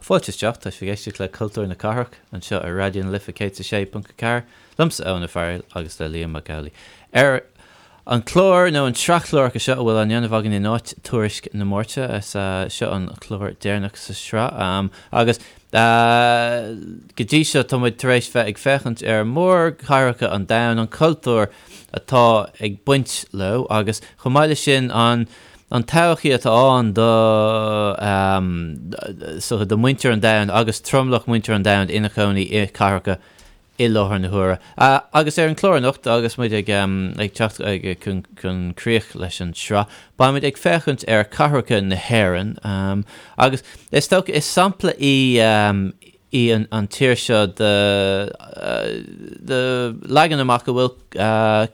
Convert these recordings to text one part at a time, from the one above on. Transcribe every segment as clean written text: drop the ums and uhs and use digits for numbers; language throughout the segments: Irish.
Fáilte isteach, tá sibh ag éisteacht le Cultúr na Cathrach anseo ar Raidió na Life 106.4, liomsa Eoin Ó Fearghail agus le Liam Mac Amhlaigh. Ar an chlár nó an tsraith chláracha seo a bhfuil á ndéanamh againn in áit Tuairisc na Máirte, is seo an clár deireanach sa sraith agus go dtí seo tá muid tar éis bheith ag féachaint ar mhórchathracha an domhain, an cultúr atá ag baint leo agus chomh maith leis sin an an todhchaí atá ann do so do mhuintir an domhain agus tromlach muintir an domhain ina chónaí i cathracha i láthair na huaire. Agus ar an chlár anocht agus muid ag ag teacht ag chun chun críoch leis an tsraith, beidh muid ag féachaint ar chathracha na hÉireann agus is dócha is sampla í í an tír seo de leagan amach a bhfuil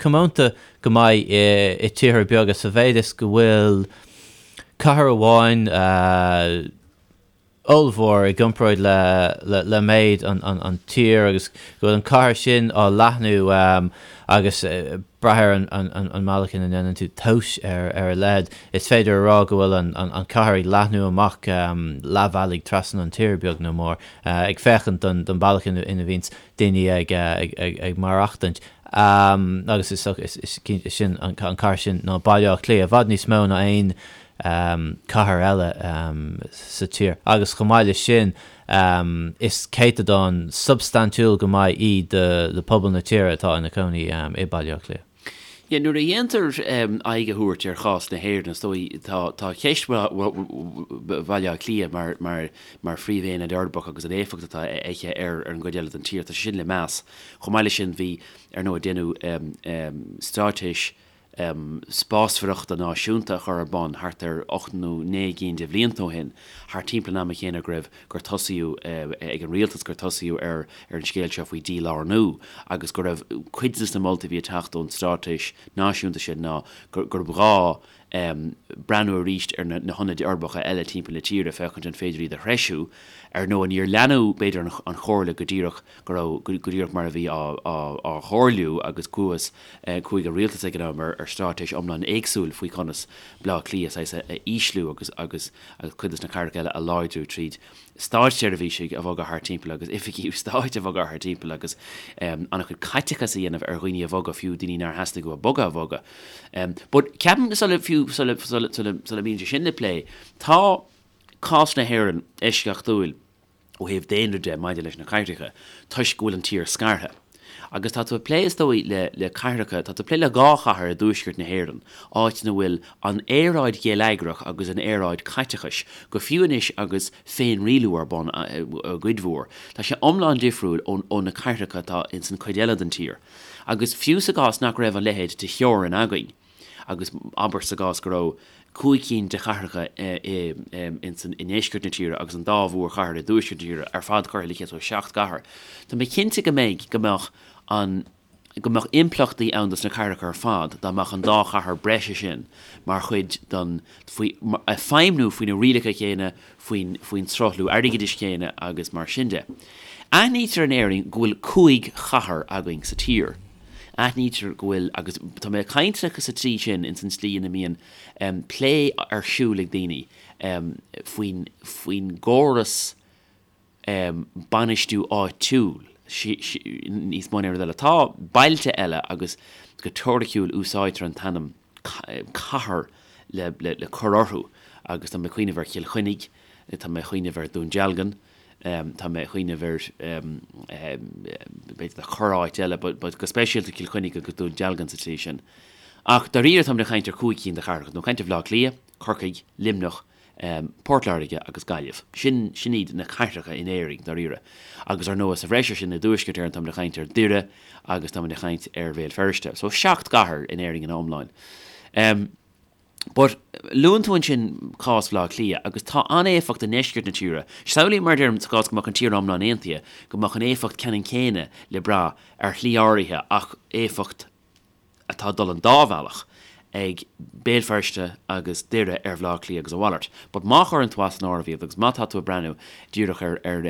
comónta go maith i tíortha beaga sa mhéid is go bhfuil cathair amháin ollmhór i gcomparáid le méid an tír agus go bhfuil an cathair sin á leathnú agus brath ar an mbealach ina ndéanann tú tomhas ar a leithead, is féidir a rá go bhfuil an chathair ag leathnú amach leathbhealaigh trasna an tír, beag nó mór, ag féachaint don bealach ina bhíonns daoine ag maireachtaint. Agus is cinnte sin an chathair sin ná Baile Átha Cliath, i bhfad níos mó ná aon cathair eile sa tír. Agus chomh maith leis sin, Is céatadán substaintiúil go maith í de phobal na tíre atá ina cónaí i Baile Átha Cliath. Yeah, nuair a dhéantar aghaidh a thabhairt ar chás na hÉireann, is dóigh, tá tá ceist Bhaile Átha Cliath mar mar mar phríomhaonad uirbeach agus an éifeacht atá aici ar ar an gcuid eile den tír, tá sé sin le meas. Chomh maith leis sin, bhí, ar ndóigh, déanadh straitéis spásmhaireachta náisiúnta a chur ar bun thart ar 8 nó 9 gcinn de bhlianta ó shin, thart timpeall an ama chéanna go raibh, gur tosaíodh ag an rialtas, gur tosaíodh ar ar an scéal seo faoi dhílárnú agus go raibh cuid de na moltaí a bhí ag teacht ón straitéis náisiúnta sin ná gurb ghá breathnú arís ar na hionaid uirbeacha eile timpeall na tíre féachaint an féidir iad a threisiú. Ar ndóigh níor leanadh b'fhéidir an chomhairle go díreach go raibh, go díreach mar a bhí á chomhairliú agus chuathas Chuaigh an rialtas ag an am ar straitéis iomlán éagsúil faoi chonas Baile Átha Cliath saghas a ísliú agus agus cuid de na cathracha eile a láidriú tríd státseirbhísigh a bhogadh thart timpeall agus oifigí stáit a bhogadh thart timpeall agus an-chuid caiteachas a dhéanamh ar dhaoine a bhogadh, fiú daoine nár theastaigh uathu bogadh a bhogadh. But ceapaim sula fiú sula sula sula sula mbíonn sé sin le plé, tá cás na hÉireann eisceachtúil. ó thaobh daonra de maidir leis na cathracha toisc go bhfuil an tír scartha. Agus tá tú ag plé, is dóigh, le, le cathracha, tá tú ag plé le dhá chathair i dtuaisceart na hÉireann, áit ina bhfuil an aeráid gheilleagrach agus an aeráid caiteachais, go fiú anois agus féinrialú ar bun i gcuid mhór, tá sé iomlán difriúil ó, ó na cathracha atá ins an cuid eile den tír. Agus fiú sa gcás nach raibh a leithéid de theorainn againn, agus abair sa gcás go raibh 5 cinn de chathracha i ndeisceart na tíre agus an dá mhórchathair i dtuaisceart na tíre ar fad curtha le chéile, so 7 gcathair. Tá mé cinnte go mbeidh, go mbeadh an, go mbeadh impleachtaí ann dos na cathracha ar fad dá mbeadh an dá chathair breise sin mar chuid den, faoi, ag feidhmniú faoi na rialacha céanna, faoin, faoin sruthlú airgeadais céanna agus mar sin de. Aithnítear in Éirinn go bhfuil 5 chathair againn sa tír. Aithnítear go bhfuil, agus tá mé ag caint sa tslí sin, ins an tslí ina mbíonn plé ar siúl ag daoine faoin, faoin gcóras bainistiú áitiúil níos mó ná aon rud eile. Tá bailte eile agus go teoiriciúil úsáidtear an t-ainm cathair le, le, le cur orthu agus tá mé ag cuimhneamh ar Chill Chainnigh, tá mé ag cuimhneamh ar Dún Dealgan, Tá mé ag cuimhneamh ar, b'fhéidir corr-áit eile, but go speisialta Cill Chainnigh agus Dún Dealgan sa tslí sin. Ach dáiríre táimid ag caint ar chúig cinn de chathracha, nó caint ar Bhaile Átha Cliath, Corcaigh, Luimneach, Port Láirge agus Gaillimh. Sin, sin iad na cathracha in Éirinn, dáiríre. Agus ar ndóigh sa bhreis ar sin i dTuaisceart Éireann táimid ag caint ar Dhoire agus táimid ag caint ar Bhéal Feirste. So seacht gcathair in Éirinn ina iomláin. But, luann tú ansin cás Bhaile Átha Cliath, agus tá an-éifeacht i ndeisceart na tíre. Samhlaím, mar a deirim, sa gcás go mbeadh an tír iomlán aontaithe, go mbeadh an éifeacht ceannann céanna le brath ar shlí áirithe ach éifeacht atá ag dul an dá bhealach ag Béal Feirste agus Doire ar Bhaile Átha Cliath agus a mhalairt. But má chuireann tú as an áireamh iad agus má tá tú ag breathnú díreach ar ar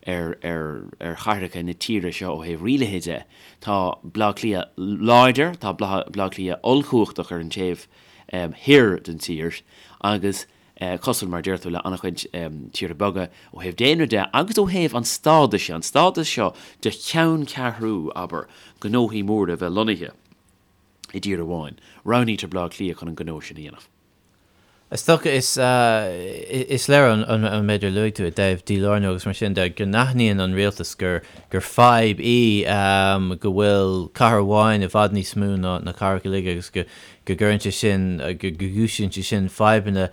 ar ar ar chathracha na tíre seo ó thaobh rialaithe de. Tá Baile Átha Cliath láidir, tá Baile Átha Cliath ollchumhachtach ar an taobh thoir den tír agus. Cosúil, mar a deir tú, le an-chuid tíortha beaga ó thaobh daonra de agus ó thaobh an stádais de, an stádas seo de cheanncheathrú, abair, gnóthaí móra a bheith lonnaithe i dtír amháin, roghnaítear Baile Átha Cliath chun an gnó sin a dhéanamh. Is dócha, is is léir an méid ar luaigh tú i dtaobh dílárnú agus mar sin de, go n-aithníonn an rialtas gur gur fadhb í go bhfuil cathair amháin i bhfad níos mó ná na cathracha uilig agus go go gcuireann sé sin, go gcúisíonn sé sin fadhbanna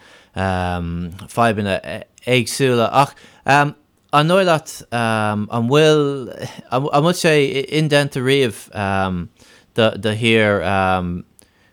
fadhbanna éagsúla. Ach an dóigh leat an bhfuil an bhfuil sé indéanta riamh do do thír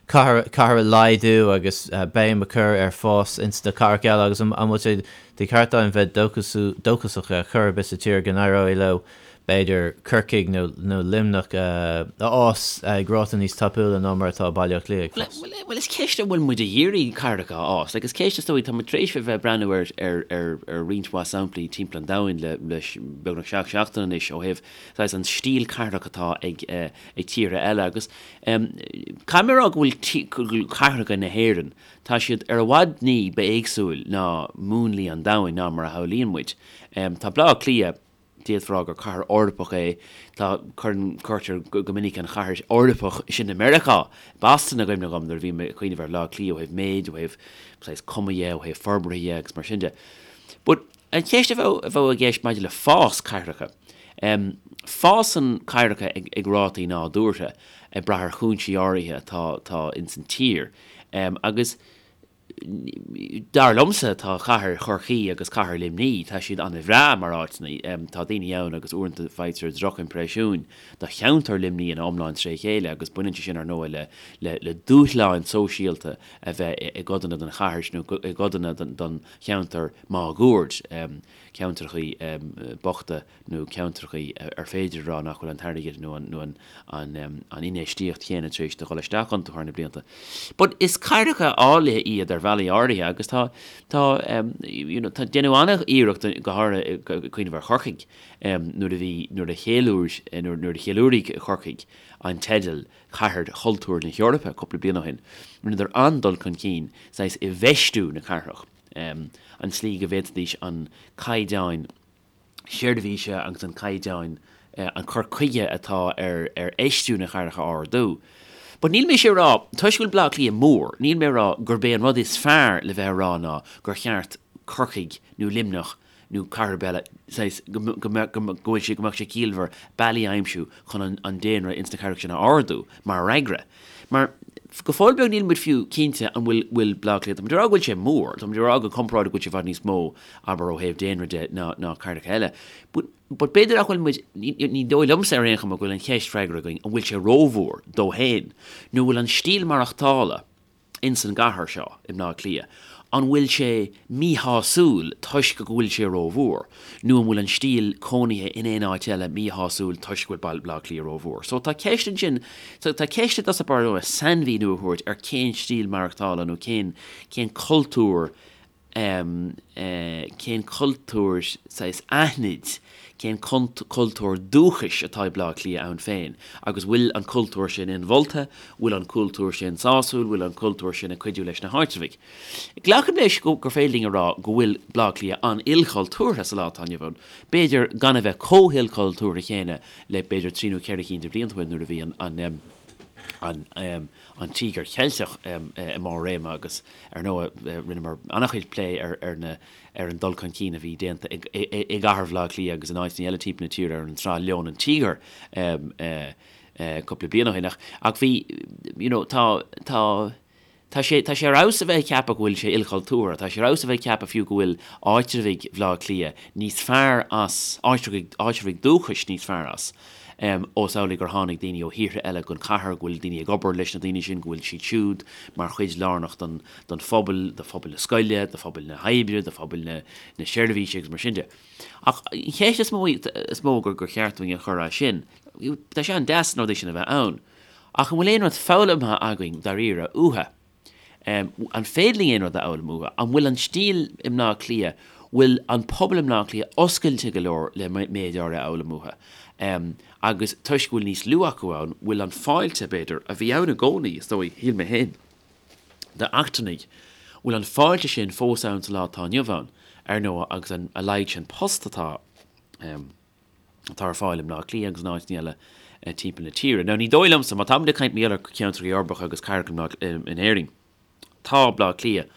cathair a laghdú agus béim a chur ar fás ins na cathracha eile agus an bhfuil sé de cheart againn bheith dóchasach ar chor ar bith sa tír go n-éireoidh leo b'fhéidir Corcaigh nó Luimneach a fhás ag ráta níos tapúla ná mar atá Baile Átha Cliath ag fás? Bhuel is ceist an bhfuil muid ag iarraidh cathracha a fhás. Like is ceist is dóigh, tá muid tar éis a bheith ag breathnú ar ar ar ar roinnt mhaith samplaí timpeall an domhain le le beagnach seacht seachtaine anois ó thaobh saghas an stíl cathrach atá ag ag tíortha eile agus Caithfidh mé a rá go bhfuil cathracha na hÉireann, tá siad ar i bhfad ní ba éagsúil ná múnlaí an domhain ná mar a shamhlaíonn muid. Tá Baile Átha Cliath, d'fhéadfá a rá gur cathair Eorpach é, tá, cuireann, cuirtear go minic an chathair Eorpach sin i Meiriceá, Boston i gcuimhne dhom nuair a bhím ag cuimhneamh ar Bhaile Átha Cliath ó thaobh méid, ó thaobh saghas cuma dhe, ó thaobh forbartha dhe agus mar sin de. But An cheist a bheadh i gceist maidir le fás cathracha. Fásann cathracha ag rátaí nádúrtha, ag brath ar chúinsí áirithe atá atá ins an tír. Agus dar liomsa tá cathair Chorcaí agus cathair Luimní, tá siad an-bhreá mar áiteanna. Tá daoine ann agus uaireanta faightear drochimpreisiúin do cheantar Luimní ina iomlán tré chéile agus baineann sé sin ar ndóigh le le le dúshláin sóisialta a bheith i gcodanna den chathair nó i gcodanna den cheantar máguaird, ceantrachaí bochta nó ceantrachaí ar féidir a rá nach bhfuil an t-airgead nó an infheistíocht chéanna tar éis do dhul isteach iontu thar na blianta. But is cathracha áille iad ar bhealaí áirithe agus tá, tá, you know, tá, déanadh an-iarracht go háirithe ag cuimhneamh ar Chorcaigh nuair a bhí, nuair a cheiliúir, nuair a cheiliúraigh Corcaigh an teideal Cathair Chultúir na hEorpa cúpla bliain ó shin, rinneadar an-dul chun cinn saghas i bhfeistiú na cathrach, an tslí go bhféadfaidís an caighdeán seirbhíse agus an caighdeán, an cur chuige atá ar ar fheistiú na cathrach a ardú. But níl mise ag rá, toisc go bhfuil Baile Átha Cliath mór, níl mé ag rá gurb é an rud is fearr le bheith a rá ná gur cheart Corcaigh nó Luimneach nó cathair ar bith eile, saghas, go mbeadh, go bhfuil sé, go mbeadh sé ciallmhar bealaí a aimsiú chun an daonra ins na cathracha sin a ardú, mar fhreagra. Mar, go fóill beag níl muid fiú cinnte an bhfuil, bhfuil Baile Átha Cliath, tá muid ag rá go bhfuil sé mór, tá muid ag rá go comparáid go bhfuil sé i bhfad níos mó, abair, ó thaobh daonra de ná, ná cathracha eile. But, but b'fhéidir nach bhfuil muid, ní, ní dóigh liomsa ar aon chuma go bhfuil an cheist freagartha againn an bhfuil sé rómhór dó féin, nó bhfuil an stíl maireachtála, ins an gcathair seo, i mBleá Cliath, an bhfuil sé míshásúil toisc go bhfuil sé rómhór, nó an bhfuil an stíl cónaithe in aon áit eile míshásúil toisc go bhfuil Baile Átha Cliath rómhór? So tá ceist ansin, so tá ceist i dtosach báire sainmhíniú a thabhairt ar cén stíl maireachtála nó cén, cén cultúr cén cultúr saghas aithnid, cén cultúr dúchais atá ag Baile Átha Cliath ann féin agus bhfuil an cultúr sin inmholta, bhfuil an cultúr sin sásúil, bhfuil an cultúr sin ag cuidiú leis na háitreabhaigh. Glacaim leis gur féidir linn a rá go bhfuil Baile Átha Cliath an-ilchultúrtha sa lá atá inniu ann, b'fhéidir gan a bheith chomh hilchultúrtha chéanna le b'fhéidir trí nó ceithre cinn de bhlianta ó shin nuair a bhí an an an Tíogar Cheilteach i mbarr réime agus, ar ndóigh, rinneamar an-chuid plé ar ar na ar an dul chun cinn a bhí déanta i i gcathair Bhaile Átha Cliath agus in áiteanna eile timpeall na tíre ar an tsraith Leon an Tíogar cúpla bliain ó shin. Ach ach bhí, you know, tá tá tá sé tá sé ar fheabhas a bheith ag ceapadh go bhfuil sé ilchultúrtha, tá sé ar fheabhas a bheith ag ceapadh fiú go bhfuil áitreabhaigh Bhaile Átha Cliath níos fearr as, áitreabhaigh áitreabhaigh dúchais níos fearr as. Ós amhlaidh gur tháinig daoine ó thíortha eile gon chathair, go bhfuil daoine ag obair leis na daoine sin, go bhfuil siad siúd mar chuid lárnach don don phobal, do phobal na scoile, do phobal na hoibre, do phobal na na seirbhíse agus mar sin de. Ach an cheist is mó is mó gur gur cheart dúinn a chur as sin, tá sé an-deas na rudaí sin a bheith ann, ach an bhfuil aon rud foghlamtha againn dáiríre uathu? An féidir linn aon rud a fhoghlaim uathu? An bhfuil an stíl i mBleá Cliath, bhfuil an pobal i mBleá Cliath oscailte go leor le méid áirithe a fhoghlaim uathu? Agus toisc go bhfuil níos lú acu ann, bhfuil an fáilte, b'fhéidir, a bhí ann i gcónaí, is dóigh, shíl mé féin, d'eachtrannaigh, Bhfuil an fáilte sin fós ann sa lá atá inniu ann, ar ndóigh, agus an a laghad sin post atá atá ar fáil i mBleá Cliath agus in áiteanna eile timpeall na tíre. Now ní dóigh liomsa, má táimid ag caint mar gheall ar cheantracha uirbeacha agus cathracha in Éirinn, Tá Bleá Cliath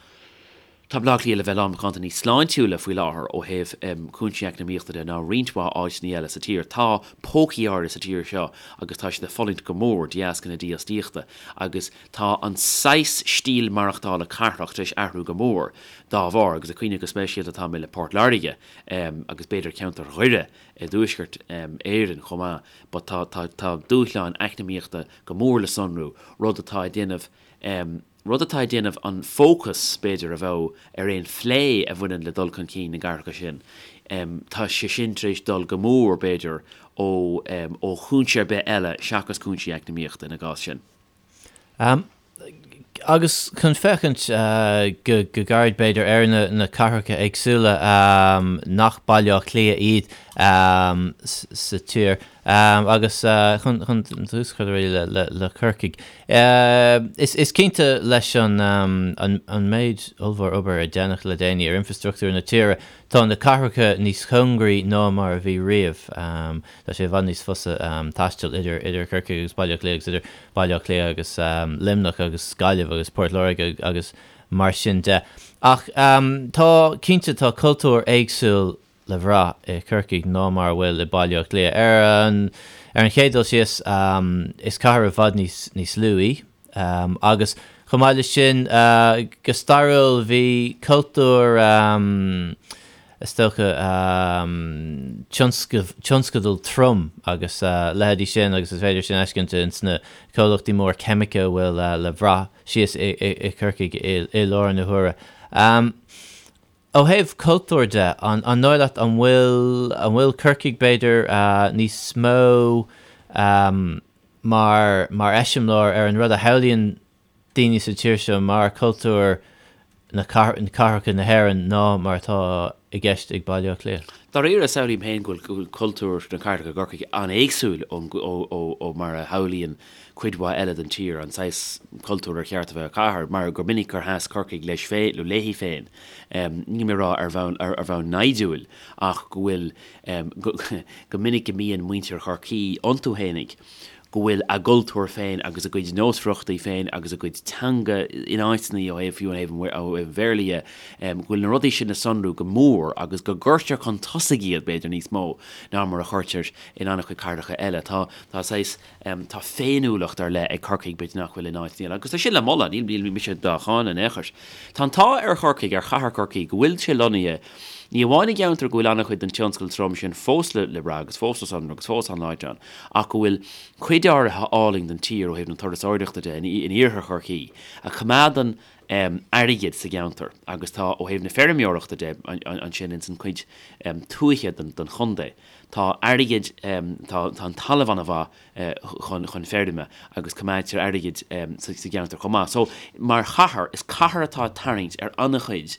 Tá Bleá Cliath le bheith lán macánta níos sláintiúla faoi láthair ó thaobh cúinsí eacnamaíochta de ná roinnt mhaith áiteanna eile sa tír. Tá pócaí áirithe sa tír seo agus tá siad ag fulaingt go mór de dheasca na dífhostaíochta agus tá an saghas stíl maireachtála cathrach tar éis athrú go mór dá bharr agus ag cuimhneamh go speisialta atá mé le Port Láirge agus b'fhéidir ceantar Dhoire i dTuaisceart Éireann chomh maith but tá tá tá dúshláin eacnamaíochta go mór le sonrú, rud atá ag déanamh rud atá ag déanamh an fócas, b'fhéidir, a bheadh ar aon phlé a bhaineann le dul chun cinn na gcathracha sin, tá sé sin tar éis dul go mór, b'fhéidir, ó ó chúinse ar bith eile seachas cúinsí eacnamaíochta ina gcás sin. Agus chun féachaint go gairid, b'fhéidir, ar na cathracha éagsúla nach Baile Átha Cliath iad sa tír, Agus chun tús a chur le Corcaigh, is cinnte leis an méid ollmhór obair a déanadh le déanaí ar infreastruchtúr na tíre, tá na cathracha níos cóngaraí ná mar a bhí riamh. Tá sé i bhfad níos fusa taisteal idir Corcaigh agus Baile Átha Cliath agus idir Baile Átha Cliath agus Luimneach agus Gaillimh agus Port Láirge agus mar sin de. Ach tá, cinnte, tá cultúr éagsúil le bhrath i Corcaigh ná mar a bhfuil i Baile Átha Cliath. Ar an ar an chéad dul síos, is cathair i bhfad níos níos lú í agus chomh maith leis sin, go stairiúil bhí cultúr is dócha tionscadal trom agus leithéidí sin agus is féidir sin a fheiscint ins na comhlachtaí móra ceimice a bhfuil le bhrath síos i i Corcaigh i láthair na huaire. Ó thaobh cultúir de, an dóigh leat an bhfuil, an bhfuil Corcaigh b'fhéidir níos mó mar, mar eiseamláir ar an rud a shamhlaíonn daoine sa tír seo mar cultúr na cathracha na hÉireann ná mar atá i gceist ag Baile Átha Cliath? Dáiríre, samhlaím féin go bhfuil cultúr na cathrach i gCorcaigh an-éagsúil ó mar a shamhlaíonn cuid mhaith eile den tír, an saghas cultúir ar cheart a bheith ag cathair, mar gur minic gur sheas Corcaigh leis féin, nó léi féin, níl mé ag rá ar bhonn, ar bhonn naimhdiúil, ach go bhfuil, go minic go mbíonn muintir Chorcaí iontu fhéinig, go bhfuil a gcultúr féin agus a gcuid nósmhaireachtaí féin agus a gcuid teanga in áiteanna ó thaobh, fiú ó thaobh an Bhéarla dhe, go bhfuil na rudaí sin le sonrú go mór agus go gcuirtear chun tosaigh iad, b'fhéidir, níos mó ná mar a chuirtear in an-chuid cathracha eile. Tá, tá saghas. Tá féiniúlacht ar leith ag Corcaigh, b'fhéidir nach bhfuil in áiteanna eile, agus tá sin le moladh, níl mise dá cháineadh in aon chor. Tá an t-ádh ar Chorcaigh, ar chathair Chorcaí, go bhfuil sé lonnaithe ní amháin i gceantar go bhfuil an-chuid den tionscal trom sin fós le brath agus fós le sonrú agus fós an-láidir ann, ach go bhfuil cuid áirithe álainn den tír ó thaobh na turasóireachta de in iarthar Chorcaí, a choimeádann airgead sa gceantar agus tá ó thaobh na feirmeoireachta de ansin ins an chuid tuaithe den chontae. Tá airgead, tá an talamh an-mhaith chun chun feirme agus coimeádtar airgead sa gceantar chomh maith. So, mar chathair, is cathair atá ag tarraingt ar an-chuid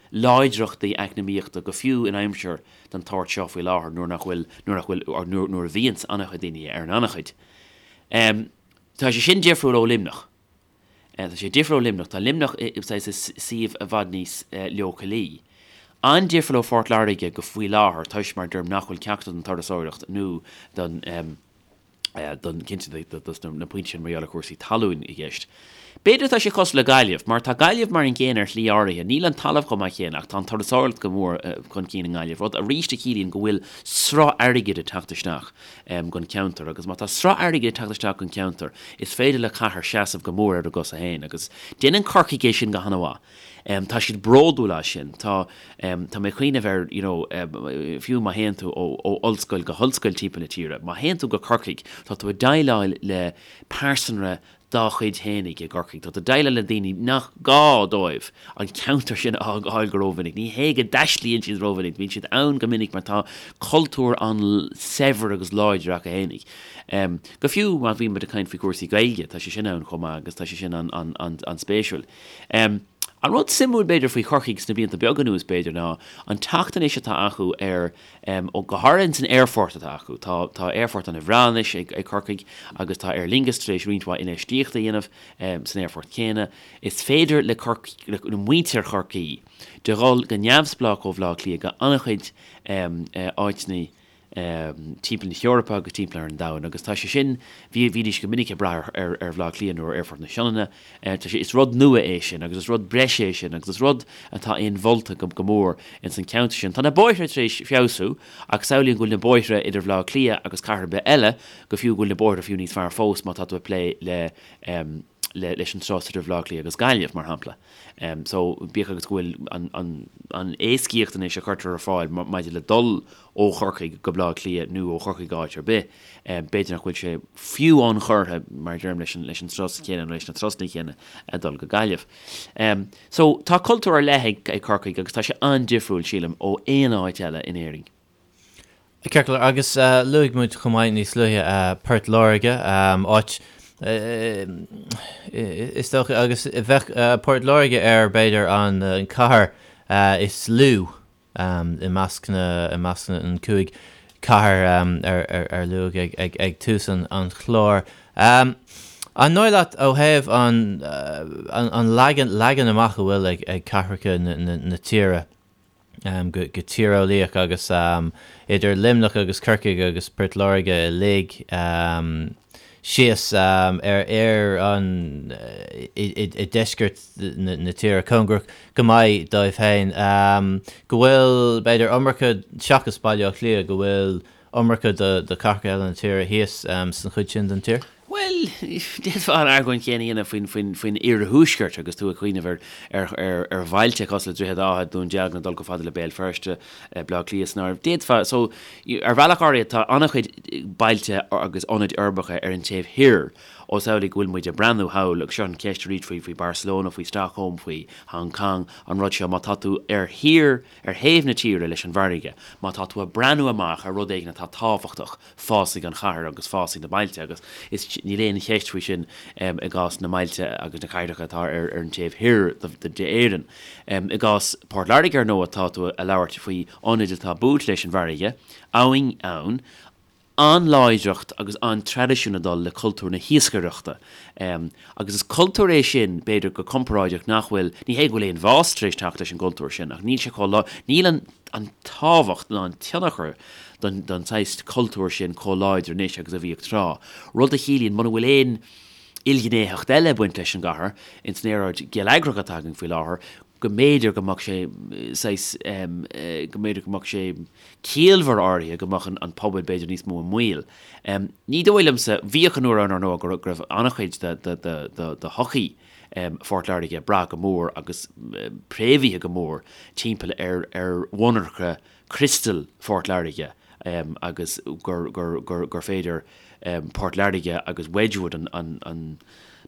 láidreachtaí eacnamaíochta go fiú in aimsir den tsórt seo faoi láthair nuair nach bhfuil, nuair nach bhfuil, or nuair a bhíonns an-chuid daoine ar an an-chuid. Tá sé sin difriúil ó Luimneach. Tá sé difriúil ó Luimneach. Tá Luimneach i saghas i suíomh i bhfad níos leochailí. An-difriúil ó Phort Láirge go faoi láthair toisc mar deirim nach bhfuil ceachtar don turasóireacht nó don don cinnte dos na pointí sin mar gheall ar chúrsaí talún i gceist. B'fhéidir tá sé cosúil le Gaillimh, mar tá Gaillimh mar an gcéanna ar shlí áirithe. Níl an talamh chomh maith céanna ach tá an turasóireacht go mór chun cinn i nGaillimh, rud arís a chiallaíonn go bhfuil sruth airgid ag teacht isteach. gon cheantar agus má tá sruth airgid ag teacht isteach gon cheantar is féidir le cathair seasamh go mór ar a gcosa féin agus déanann Corcaigh é sin go han-mhaith. Tá siad bródúil as sin. Tá tá mé ag cuimhneamh ar you know fiú má théann tú ó ó ollscoil go hollscoil timpeall na tíre, má théann tú go Corcaigh tá tú ag déileáil le pearsanra dá chuid fhéinig i gCorcaigh. Tá tú ag déileáil le daoine nach gá dóibh an ceantar sin a fhágáil go rómhinic. Ní hé go dtaistlíonn siad rómhinic, bíonn siad ann go minic mar tá cultúr an-saibhir agus láidir acu fhéinig. Go fiú má bhíonn muid ag caint faoi chúrsaí Gaeilge, tá sé sin ann chomh maith agus tá sé sin an-spéisiúil. An rud suimiúil, b'fhéidir, faoi Chorcaigh sna blianta beaga anuas, b'fhéidir, ná an teacht anois atá acu ar, ó, go háirithe ins an aerfort atá acu. Tá, tá aerfort an-bhreá anois ag, ag Corcaigh agus tá Aer Lingus tar éis roinnt mhaith infheistíochta a dhéanamh san aerfort céanna. Is féidir le Corc, le muintir Chorcaí de dhul go neamhspleách ó Bhaile Átha Cliath go an-chuid áiteanna timpeall na hEorpa agus timpeall ar an domhan agus tá sé sin, bhí, bhídís go minic ag brath ar, ar Bhaile Átha Cliath nó ar Aerfort na Sionainne. Tá sé, is rud nua é sin agus is rud breise é sin agus is rud atá inmholta go, go mór ins an ceantar sin. Tá na bóithre tar éis feabhsú ach samhlaím go bhfuil na bóithre idir Bhaile Átha Cliath agus cathair ar bith eile, go fiú go bhfuil na bóithre fiú níos fearr fós má tá tú ag plé le, le, leis an turas idir Bhaile Átha Cliath agus Gaillimh, mar shampla. So, bíodh agus go bhfuil an, an, an éascaíocht anois a chuirtear ar fáil maidir le dul ó Chorcaigh go Baile Átha Cliath nó ó Chorcaigh go áit ar bith, b'fhéidir nach bhfuil sé fiú ionchurtha, mar a deirim, leis an, leis an turas céanna nó leis na turasanna céanna ag dul go Gaillimh. So, tá cultúr ar leith ag, ag Corcaigh agus tá sé an-difriúil, sílim, ó aon áit eile in Éirinn. Ceart go leor, agus luaigh muid chomh maith níos luaithe Port Láirge, áit is dócha, agus bheadh Port Láirge ar b'fhéidir an cathair is lú i measc na, i measc na gcúig cathair ar luadh ag tús an chláir. An dóigh leat ó thaobh an leagan amach a bhfuil ag cathracha na tíre, go tíreolaíoch agus idir Luimneach agus Corcaigh agus Port Láirge uilig síos ar ar an i deisceart na tíre, cóngarach go maith dóibh féin, go bhfuil b'fhéidir iomarca, seachas Baile Átha Cliath, go bhfuil iomarca de chathracha eile na tíre thíos san chuid sin den tír? Bhuel, d'fhéadfá an argóint chéanna a dhéanamh faoin, faoin, faoin iarthuaisceart agus tú ag cuimhneamh ar, ar, ar, ar bhailte cosúil le Droichead Átha, Dún Dealgan, ag dul chomh fada le Béal Feirste, Baile Átha Cliath san áireamh. D'fhéadfá, so, ar bhealach áirithe tá an-chuid bailte agus ionaid uirbeacha ar an taobh thoir ós amhlaidh go bhfuil muid ag breathnú thall agus seo an cheist arís faoi, faoi Barcelona, faoi Stockholm, faoi Hong Kong, an rud seo, má tá tú ar thiar, ar thaobh na tíre leis an bhfarraige, má tá tú ag breathnú amach ar rud éigin atá tábhachtach, fásfaidh an chathair agus fásfaidh na bailte agus is, níl aon cheist faoi sin i gcás na mbailte agus na cathracha atá ar an taobh thoir d'Éirinn. I gcás Port Láirge, ar ndóigh, tá tú ag labhairt faoi ionaid atá buailte leis an bhfarraige, abhainn ann, an-láidreacht agus an-traidisiún ag dul le cultúr na hiascaireachta. Agus is cultúr é sin, b'fhéidir, go comparáideach nach bhfuil, ní hé go bhfuil aon bhás tar éis teacht leis an gcultúr sin, ach níl sé chomh lá, níl an an tábhacht ná an tionchar don don saghas cultúr sin chomh láidir anois agus a bhíodh tráth. Rud a chiallaíonn muna bhfuil aon ilghnéitheacht eile ag baint leis an gcathair, ins an aeráid gheilleagrach atá againn faoi láthair, go mb'fhéidir go mbeadh sé saghas, go mb'fhéidir go mbeadh sé ciallmhar áirithe go mbeadh an pobal b'fhéidir níos mó i mbaol. Ní dóigh liomsa, bhíodh an uair ann ar ndóigh go raibh an-chuid de shochaí Phort Láirge ag brath go mór agus préamhaithe go mór timpeall ar mhonarcha criostail Phort Láirge agus gur féidir Port Láirge agus Wedgwood an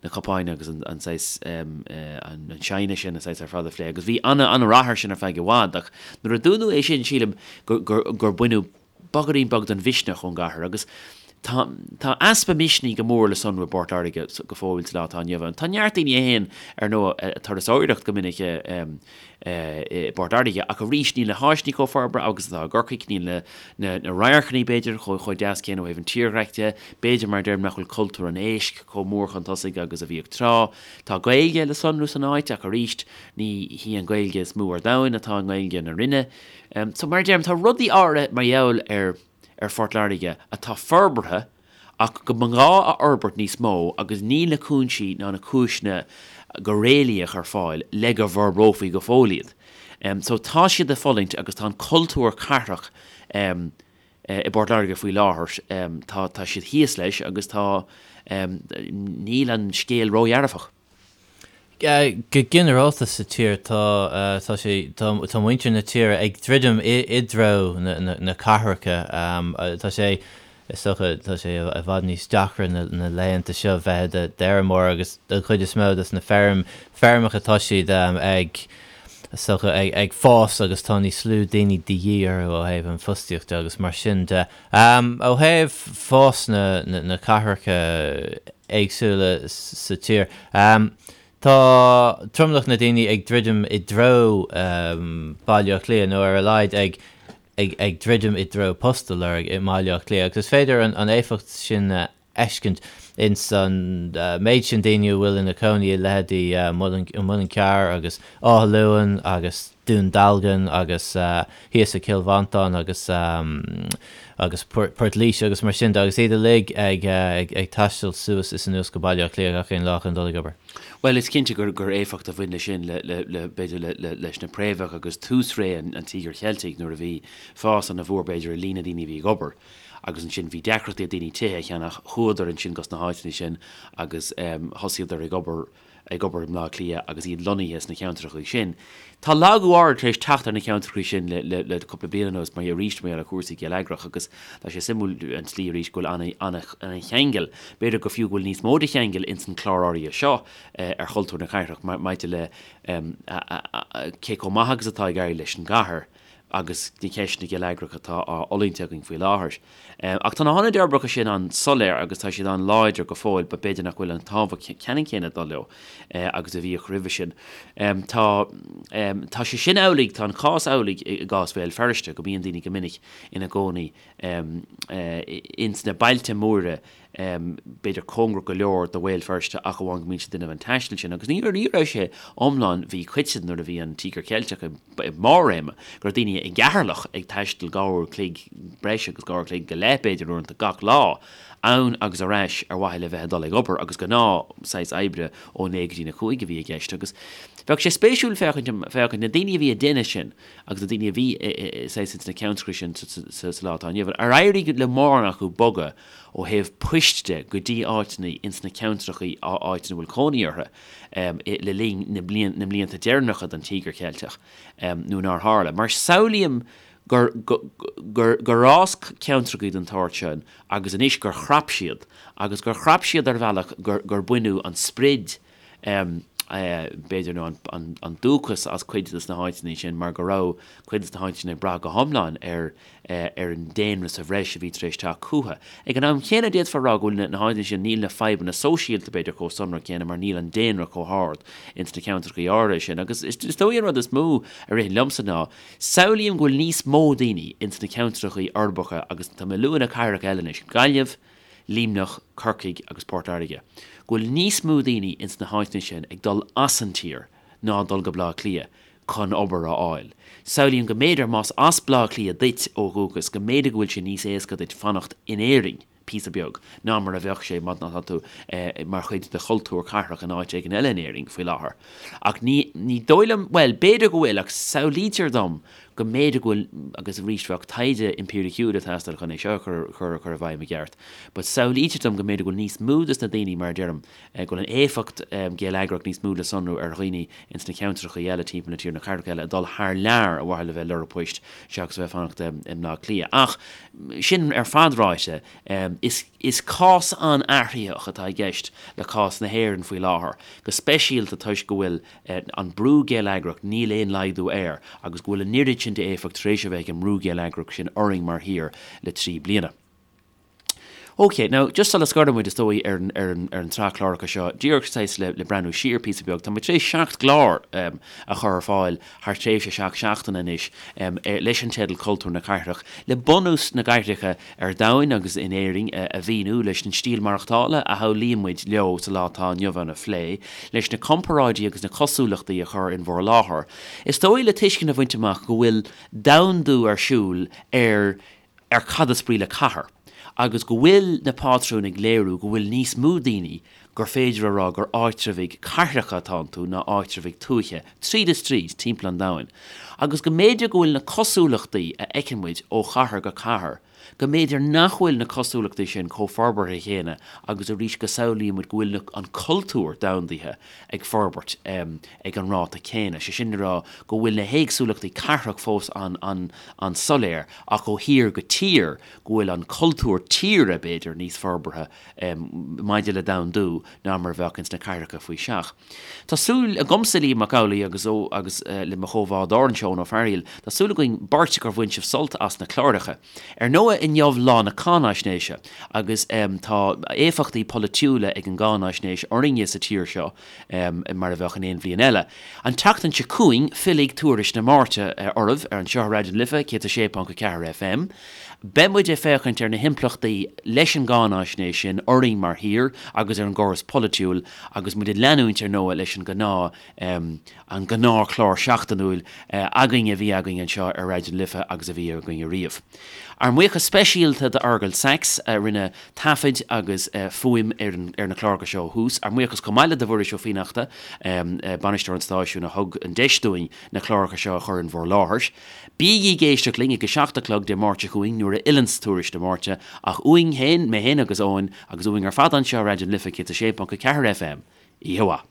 na cupáin agus an saghas an china sin an saghas ar fad a phlé agus bhí an-rath air sin ar feadh i bhfad ach nuair a dúnadh é sin sílim gur baineadh bogairín beag den mhisneach ón gcathair agus tá tá easpa misnigh go mór le sonrú i bPort Láirge go fóill sa lá atá inniu ann. Tá neart daoine a théann ar ndóigh ag turasóireacht go minic i bPort Láirge ach arís níl na háiseanna chomh forbartha agus atá i gCorcaigh, níl na na na radharcanna b'fhéidir chomh chomh deas céanna ó thaobh an tírdhreach de, b'fhéidir mar a deirim nach bhfuil cultúr an éisc chomh mór chun tosaigh agus a bhíodh tráth. Tá Gaeilge le sonrú san áit ach arís ní hí an Ghaeilge is mó ar domhan atá i nGaeilge na Rinne. So mar a deirim, tá rudaí áirithe mar gheall ar ar Phort Láirge atá forbartha ach go mba ghá a fhorbairt níos mó agus níl na cúinsí ná na cúiseanna go réalaíoch ar fáil le go bhforbrófaí go fóill iad. So tá siad ag fulaingt agus tá an cultúr cathrach i bPort Láirge faoi láthair, tá tá siad thíos leis agus tá níl an scéal ródhearfach. Go ginearálta sa tír tá tá sé tá tá muintir na tíre ag druidim i i dtreo na na na cathracha. Tá sé is dócha tá sé i bhfad níos deacra na na laethanta seo bheith i d'fheirmeoir agus don chuid is mó des na feirm feirmeacha tá siad ag is dócha ag ag fás agus tá níos lú daoine de dhíth orthu ó thaobh an fostaíocht de agus mar sin de. Ó thaobh fás na na na cathracha éagsúla sa tír. Tá tromlach na daoine ag druidim i dtreo Baile Átha Cliath, nó ar a laghad ag ag druidim i dtreo post a lorg i mBaile Átha Cliath, agus is féidir an éifeacht sin a fheiscint ins an méid sin daoine a bhfuil ina cónaí i leithéidí Muileann Cearr agus Áth Luain agus Dún Dealgan agus thíos i Cill Mhantáin agus agus Port Laoise agus mar sin de agus iad uilig ag ag taisteal suas is anuas go Baile Átha Cliath gach aon lá chun dul ag obair. Bhuel, is cinnte gur gur éifeacht a bhain leis sin le le le b'fhéidir le le leis na préamhacha agus tús ré an an Tíogair Cheiltigh nuair a bhí fás ana mhór b'fhéidir i líon na daoine a bhí ag obair agus ansin bhí deacrachtaí ag daoine tithe a cheannach, chuadar ansin gos na háiteanna sin agus thosaíodar ag obair ag obair i mBleá Cliath agus iad lonnaithe sna ceantracha sin. Tá lagú áirid tar éis teacht ar na ceantracha sin le le le cúpla bliain anuas mar arís mar gheall ar chúrsaí geilleagrach agus tá sé suimiúil an tslí arís go bhfuil ana ana ana cheangal, b'fhéidir go fiú go bhfuil níos mó de cheangal ins an clár áirithe seo ar chultúr na cathrach maidir le cé chomh maith agus atá ag éirí leis an gcathair. agus na ceisteanna geilleagracha atá á fhulaingt againn faoi láthair. Ach tá na hionaid uirbeacha sin an-soiléir agus tá siad an-láidir go fóill but b'fhéidir nach bhfuil an tábhacht ceannann céanna ag dul leo agus a bhíodh roimhe sin. Tá tá sé sin amhlaidh, tá an cás amhlaidh i gcás Bhéal Feirste, go mbíonn daoine go minic ina gcónaí ins na bailte móra b'fhéidir cóngarach go leor do Bhéal Feirste ach amháin go mbíonn siad ag déanamh an taistil sin agus ní ní raibh sé iomlán mhíchoiteann nuair a bhí an Tíogar Ceilteach i mbarr réime go raibh daoine i gCeatharlach ag taisteal dhá uair chloig breis agus dhá uair chloig go leith b'fhéidir uaireanta gach lá ann agus ar ais ar mhaithe le bheith ag dul ag obair agus gnáth saghas oibre ó 9 go dtí na 5 a bhí i gceist agus bheadh sé spéisiúil féachaint féachaint na daoine a bhí ag déanamh sin agus na daoine a bhí saghas ins na ceantracha sin sa lá atá inniu ann ar éirigh le mórán acu bogadh ó thaobh poist de go dtí áiteanna ins na ceantrachaí áit ina bhfuil cónaí orthu le linn na na mblianta deireanacha den Tíogar Cheilteach nó nár tharla. Mar samhlaím gur gur gur fhás ceantrachaí den tsórt sin agus anois gur chrap siad agus gur chrap siad ar bhealach gur gur baineadh an sprid b'fhéidir, nó an dúchas as cuid de na háiteanna sin mar go raibh cuid de na háiteanna sin ag brath go hiomlán ar ar an daonra sa bhreis a bhí tar éis teacht chucu. Ag an am chéanna d'fhéadfá a rá go bhfuil na háiteanna sin, níl na fadhbanna sóisialta b'fhéidir chomh sonrach céanna mar níl an daonra chomh hard ins na ceantracha áirithe sin. Agus is dóigh an rud is mó a ritheann liomsa ná, samhlaím go bhfuil níos mó daoine ins na ceantracha uirbeacha agus tá mé ag lua na cathracha eile anois, Gaillimh, Luimneach, Corcaigh agus Port Láirge, go bhfuil níos mó daoine ins na háiteanna sin ag dul as an tír ná dul go Bleá Cliath chun obair a fháil. Samhlaím go mb'fhéidir más as Bleá Cliath duit ó dhúchas go mb'fhéidir go bhfuil sé níos éasca duit fanacht in Éirinn píosa beag ná mar a bheadh sé má tá tú mar chuid de chultúr cathrach in áit éigin eile in Éirinn faoi láthair. Ach ní ní dóigh liom, bhuel, b'fhéidir go bhfuil ach samhlaítear dom go mb'fhéidir go bhfuil, agus arís bheadh taighde impiriciúil ag teastáil chun é seo a chur chur chur i bhfeidhm i gceart, but samhlaítear dom go mb'fhéidir go bhfuil níos mó des na daoine, mar a deirim, go bhfuil an éifeacht gheilleagrach níos mó le sonrú ar dhaoine ins na ceantracha eile timpeall na tíre, na cathracha eile, ag dul thar lear ar mhaithe le bheith ag lorg poist seachas a bheith ag fanacht i mBleá Cliath. Ach sin ar fad ráite, is is cás an-athraitheach atá i gceist le cás na hÉireann faoi láthair, go speisialta toisc go bhfuil an brú geilleagrach, níl aon laghdú air agus go bhfuil an oiread sin d'éifeacht tar éis a bheith ag an mbrú geilleagrach sin orainn mar thír le 3 bliana. Ok, now just sula scoireann muid is dóigh ar an, ar an, ar an tsraith cláracha seo, díreach saghas le, le breathnú siar píosa beag, tá muid tar éis 7 gclár um, a chur ar fáil thar tréimhse 7 seachtaine anois um, leis an teideal Cultúr na Cathrach, le bunús na gcathracha ar domhain agus in Éirinn a mhíniú, leis an stíl maireachtála a shamhlaíonn muid leo sa lá atá inniu ann a phlé, leis na comparáidí agus na cosúlachtaí a chur in bhur láthair. Is dóigh le tuiscint a bhaint amach go bhfuil domhandú ar siúl ar ar cad is brí le cathair agus go bhfuil na pátrúin ag léiriú go bhfuil níos mó daoine gur féidir a rá gur áitreabhaigh cathracha atá iontu ná áitreabhaigh tuaithe, tríd is tríd, timpeall an domhain, agus go mb'fhéidir go bhfuil na cosúlachtaí a fheiceann muid ó chathair go cathair, go mb'fhéidir nach bhfuil na cosúlachtaí sin chomh forbartha chéanna agus arís go samhlaíonn muid go bhfuil na, an cultúr domhandaithe ag forbairt ag an ráta céanna, sé sin le rá go bhfuil na héagsúlachtaí cathrach fós an, an, an-soiléir ach ó thír go tír go bhfuil an cultúr tíre, b'fhéidir, níos forbartha. maidir le domhandú ná mar a bheadh ins na cathracha faoi seach. Tá súil agamsa, Liam Mac Amhlaigh, agus ó agus le mo chomhbhádóir anseo, Eoin Ó Fearghaíl. Tá súil againn beirt gur bhain sibh sult as na cláracha. Ar ndóigh inniu lá na cáináisnéise agus tá éifeachtaí polaitiúla ag an gcáináisnéis orainne sa tír seo mar a bheadh in aon bhliain eile. An tseachtain seo chugainn fillfidh Tuairisc na Máirte oraibh ar anseo ar Raidió na Life 106.4 FM. Beidh muid ag féachaint ar na himpleachtaí leis an gcáináisnéis sin orainn mar thír agus ar an gcóras polaitiúil agus muid ag leanúint ar ndóigh leis an gnáth an gnáthchlár seachtainiúil againn a bhí againn anseo ar Raidió na Life agus a bhí againn ariamh. Ár mbuíochas speisialta d'Fheargal Sachs a rinne taifid agus fuaim ar na cláracha seo ó thús. Ár mbuíochas chomh maith le do Mhuiris Ó Fiannachta, bainisteoir an stáisiúin a thug an deis dúinn na cláracha seo a chur in bhur láthair. Bígí ag éisteacht linn ag a 7 a chlog Dé Máirt seo chugainn nuair a fhilleanns Tuairisc na Máirte ach uainn féin, mé féin agus Eoin, agus uainn ar fad anseo ar Raidió na Life 106.4 FM. Oíche mhaith.